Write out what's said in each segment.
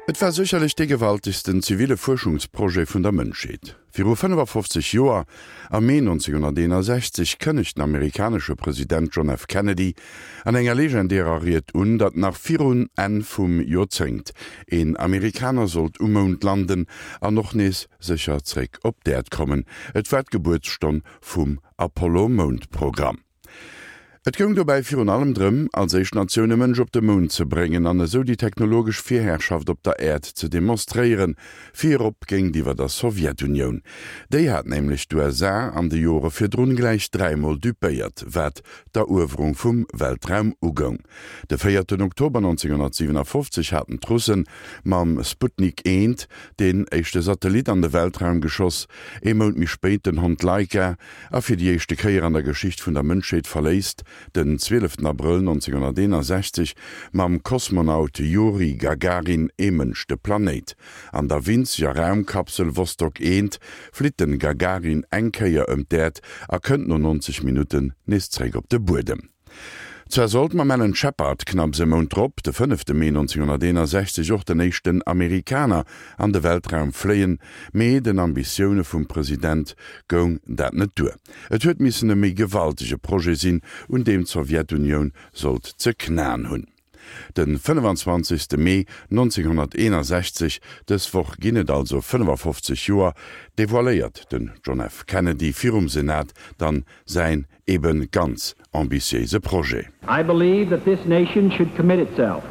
Et war sécherlech dee gewaltegsten ziville Fuerschungsprojet vun der Mënschheet. Viru 55 Joer, am Mee 1961, kënnegt den amerikanesche President John F. Kennedy an enger legendärer Ried un, datt nach virun Enn vum Joerzéngt een Amerikaner sollt um Mound landen an och nees sécher zréck op d'Äerd kommen. Et war d'Gebuertsstonn vum Apollo-Moundprogramm. Et goung dobäi virun allem drëm, als éischt Natioun e Mënsch op de Mound ze bréngen an esou déi technologesch Virherrschaft op der Äerd ze demonstréieren, virop géintiwwer der Sowjetunioun. Déi hat nämlech d'USA an de Jore virdrun gläich dräimol dupéiert, wat d'Eruewerung vum Weltraum ugoung. De véierten Oktober 1957 haten d'Russen mam Sputnik I deen éischte Satellit an de Weltraum geschoss, ee Mount méi spéit den Hond Laika, A fir déi éischte Kéier an der Geschicht vun der Mënschheet verléisst den 12 Abrëll 1961 mam Kosmonaut Juri Gagarin ee Mënsch de Planéit. An der winzeger Raumkapsel Vostok 1 flitt den Gagarin eng Kéier ëm d'Äerd a kënnt no 90 Minutten nees zréck op de Buedem. Zwar sollt mam Alan Shepard knapps e Mount drop, de fënnefte Mee 1961, och den éischten Amerikaner an de Weltraum fléien, mee den Ambitioune vum President goung dat net duer. Et huet missen e méi gewaltege Projet sinn, un deem d'Sowjetunioun sollt ze knaen hunn. De 25. Mee 1961, dës Woch ginn et also 55 Joer, devoiléiert den John F. Kennedy virum Senat dann säin eben ganz ambitiéise Projet. I believe that this nation should commit itself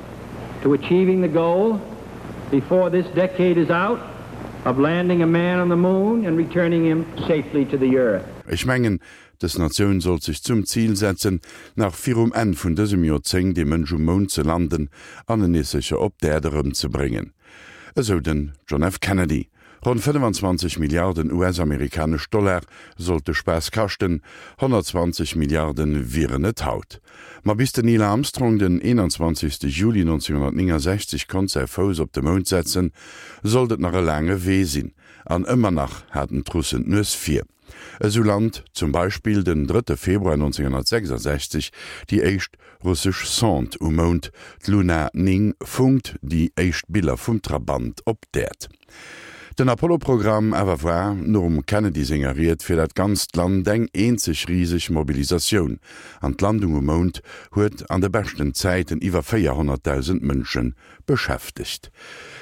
to achieving the goal before this decade is out of landing a man on the moon and returning him safely to the earth. Ech mengen, dës Natioun sollt sech zum Zil setzen, nach virum Enn vun dësem Joerzéngt ee Mënsch um Mound ze landen an en nees sécher op d'Äerd erëmzebréngen, esou den John F. Kennedy. Ronn 25 Milliarden US-amerikanesch Dollar sollt de Spaass kaschten, 120 Milliarde wieren et haut. Ma bis den Neil Armstrong den 21. Juli 1969 konnt säi Fouss op de Mound setzen, sollt et nach e laange Wee sinn. An ëmmer nach haten d'Russen d'Nues vir. Esou lant zum Beispill den drëtte Februar 1966 déi éischt russesch Sonde um Mound, d'Luna 9 funkt déi éischt Biller vum Trabant op d'Äerd. Den Apollo-Programm awer war, nom Kennedy senger Ried, fir dat ganzt Land eng eenzeg riseg Mobilisatioun, an d'Landung um Mound huet an de beschten Zäiten iwwer 400.000 Mënsche beschäftegt.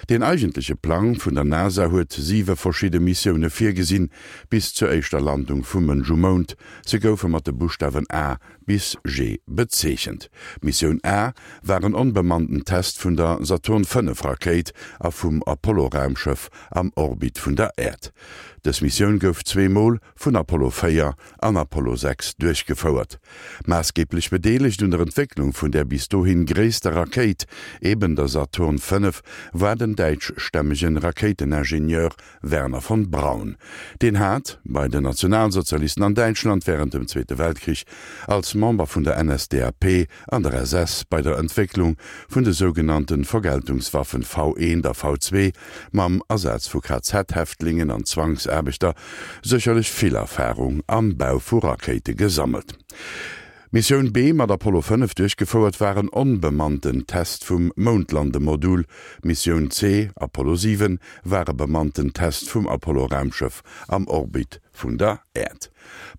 Deen eigentleche Plang vun der NASA huet siwe verschidde Missioune virgesinn, bis zur éischter Landung vum Mënsch um Mound. Se goufe mat de Buschtawen A bis G bezeechent. D'Missioun A war en onbemannten Test vun der Saturn V Rakéit a vum Apollo-Raumschëff am Orbit vun der Äerd. Dës Missioun gouf zweemol vun Apollo 4 an Apollo 6 duerchgefouert. Maassgeeblech bedeelegt un der Entwécklung vun där bis dohin gréisster Rakéit, eben der Saturn V, war den däitschstämmege Rakéiteningenieur Wernher von Braun. Deen hat bei den Nationalsozialisten an Däitschland wärend dem Zweete Weltkrich als Member vun der NSDAP an der SS bei der Entwécklung vun de sougenannte Vergeltungswaffen V1 a V2 mam Asaz vu KZ-Häftlingen an Zwangsaarbechter sécherlech vill Erfarung am Bau vu Rakéite gesammelt. D'Missioun B, mat Apollo 5 duerchgefouert, war en onbemannten Test vum Moundlandemodul. D'Missioun C, Apollo 7, war e bemannten Test vum Apollo-Raumschëff am Orbit vun der Äerd.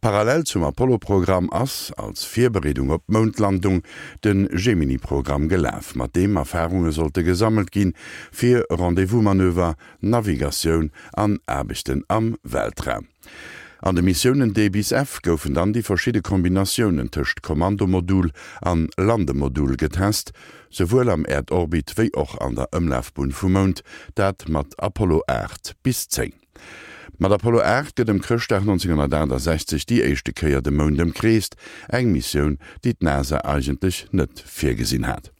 Parallel zum Apollo-Programm ass, als Virbereedung op d'Moundlandung, de Gemini-Programm gelaf, mat deem Erfarunge sollte gesammelt ginn, fir Rendez-vous-Manöver, Navigatioun an Aarbechten am Weltraum. An de Missiounen D bis F goufen dann déi verschidde Kombinatiounen tëscht Kommandomodul an Landemodul getest, souwuel am Äerdorbit wéi och an der Ëmlafbunn vum Mound, dat mat Apollo 8 bis 10. Mat Apollo 8 gëtt ëm Chrëschtdag 1968 déi éischte Kéier de Mound ëmkreest, eng Missioun, déi d'NASA eigentlech net virgesinn hat.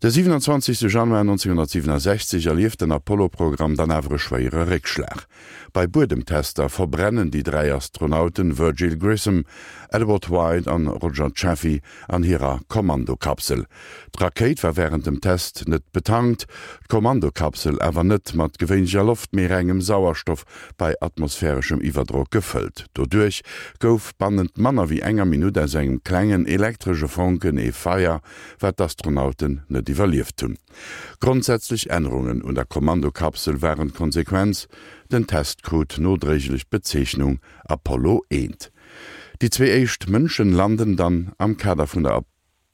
De 27 Januar 1967 erlieft den Apollo-Programm dann awer e schwéiere Réckschlag. Bei Buedemtester verbrennen déi 3 Astronauten Virgil Grissom, Edward White an Roger Chaffee an hirer Kommandokapsel. D'Rakéit war wärend dem Test net betankt, d'Kommandokapsel awer net mat gewéinlecher Loft, mee rengem Sauerstoff bei atmosphäreschem Iwwerdrock gefëllt. Doduerch gouf bannent manner wéi enger Minutt aus engem klengen elektresche Fonken ee Feier, wat d'Astronauten net. net iwwerlieft hunn. Grondsätzlech Ännerungen un der Kommandokapsel waren d'Konsequenz, den Test krut nodréiglech d'Bezeechnung Apollo 1. Déi zwee éischt Mënschen landen dann am Kader vun der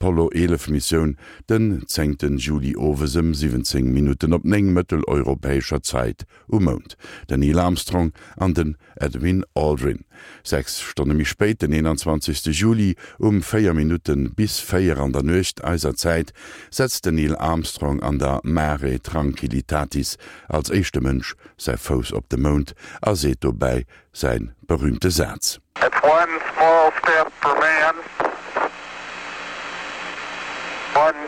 Apollo 11 Missioun den zéngten Juli owes ëm 17 Minutten op 9 mëtteleuropäescher Zäit um Mound, den Neil Armstrong an den Edwin Aldrin. 6 Stonne méi spéit, den 21. Juli um 4 Minutte bis 4 an der Nuecht eiser Zäit, setzt den Neil Armstrong an der Mare Tranquillitatis als éischte Mënsch säi Fouss op de Mound a seet dobäi säi berüümte Saz. It's one small step for man, one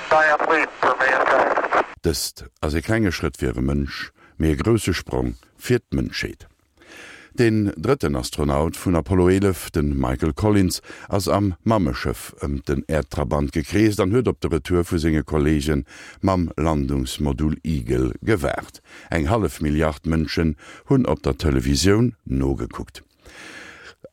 giant leap for mankind. Dëst ass e klenge Schrëtt fir e Mënsch, mee e grousse Sprong fir d'Mënschheet. Deen drëtten Astronaut vun Apollo 11, de Michael Collins, ass am Mammeschëff ëm den Äerdtrabant gekreest an huet op de Retour vu senge Kolleege mam Landungsmodul Eagle gewaart. Eng hallef Milliard Mënschen hunn op der Televisioun nogekuckt.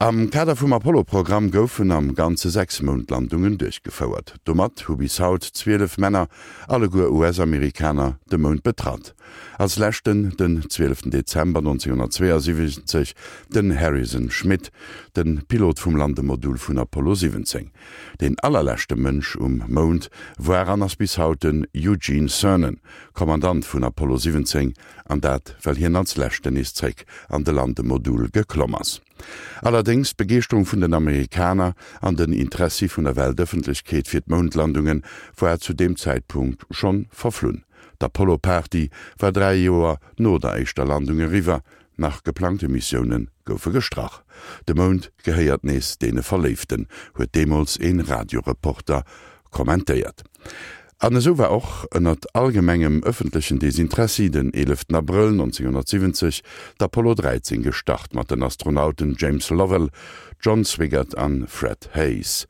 Am Kader vum Apollo-Programm goufen am Ganze 6 Moundlandungen duerchgefouert. Domat hu bis haut 12 Männer, alleguer US-Amerikaner, de Mound betratt. Als leschten den 12 Dezember 1972 den Harrison Schmitt, de Pilot vum Landemodul vun Apollo 17. Deen allerleschte Mënsch um Mound war an ass bis haut den Eugene Cernan, Kommandant vun Apollo 17, an dat well hien als leschten nees zréck an de Landemodul geklomm ass. Allerdéngs, d'Begeeschterung vun den Amerikaner an den Interessi vun der Weltëffentlechkeet fir d'Moundlandunge war zu deem Zäitpunkt schonn verflunn. D'Apollo-Party war 3 Joer no der éischter Landung eriwwer, nach geplangte Missioune goufe gestrach. De Mound gehéiert nees deene Verléiften, huet deemools ee Radioreporter kommentéiert. An esou war och, ënnert allgemengem ëffentlechen Desinteressi, den 11 Abrëll 1970 d'Apollo 13 gestart mat den Astronauten James Lovell, John Swigert an Fred Haise.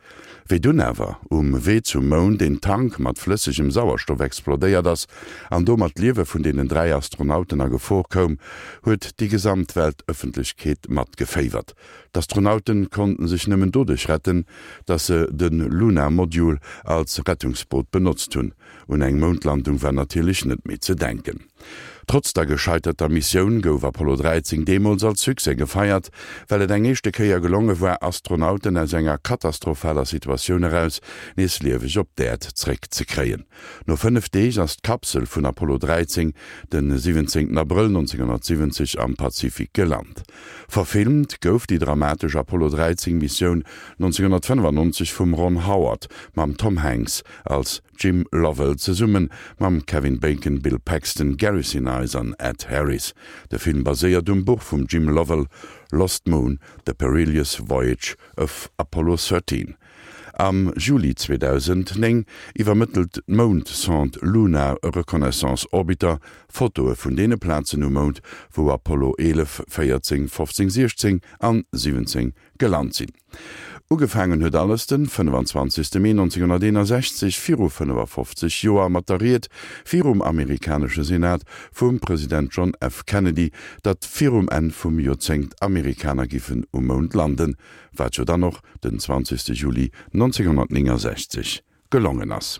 Wéi dunn awer um Wee zum Mound een Tank mat flëssegem Sauerstoff explodéiert ass an domat d'Liewe vun deenen 3 Astronauten a Gefor koum, huet déi gesamt Weltëffentlechkeet matgeféiwert. D'Astronauten konnten sech nëmmen doduerch retten, dass se de Luna Module als Rettungsboot benotzt hunn. Un eng Moundlandung war natierlech net méi ze denken. Trotz der gescheiterter Missioun gouf Apollo 13 deemools als Succès gefeiert, well et eng éischte Kéier gelonge war, Astronauten aus enger katastrophaler Situatioun eraus nees lieweg op d'Äerd zréck ze kréien. No 5 Deeg ass d'Kapsel vun Apollo 13 de 17 Abrëll 1970 am Pazifik gelant. Verfilmt gouf déi dramatesch Apollo 13 Missioun 1995 vum Ron Howard mam Tom Hanks als Jim Lovell zesumme mam Kevin Bacon, Bill Paxton, Gary Sinise an Ed Harris. De Film baséiert um Buch vum Jim Lovell Lost Moon, The Perilous Voyage of Apollo 13. Am Juli 2009 iwwermëttelt d'Moundsonde Lunar Reconnaissance Orbiter Fotoe vun deene Plazen um Mound, wou Apollo 11, 14, 15, 16 an 17 gelant sinn. Ugefaangen huet alles den 25. Mee 1961, viru 55 Joer, mat der Ried virum amerikanesche Senat vum President John F. Kennedy, datt virum Enn vum Joerzéngt Amerikaner giffen um Mound landen. Wat jo dann och den 20. Juli 1969 gelongen ass.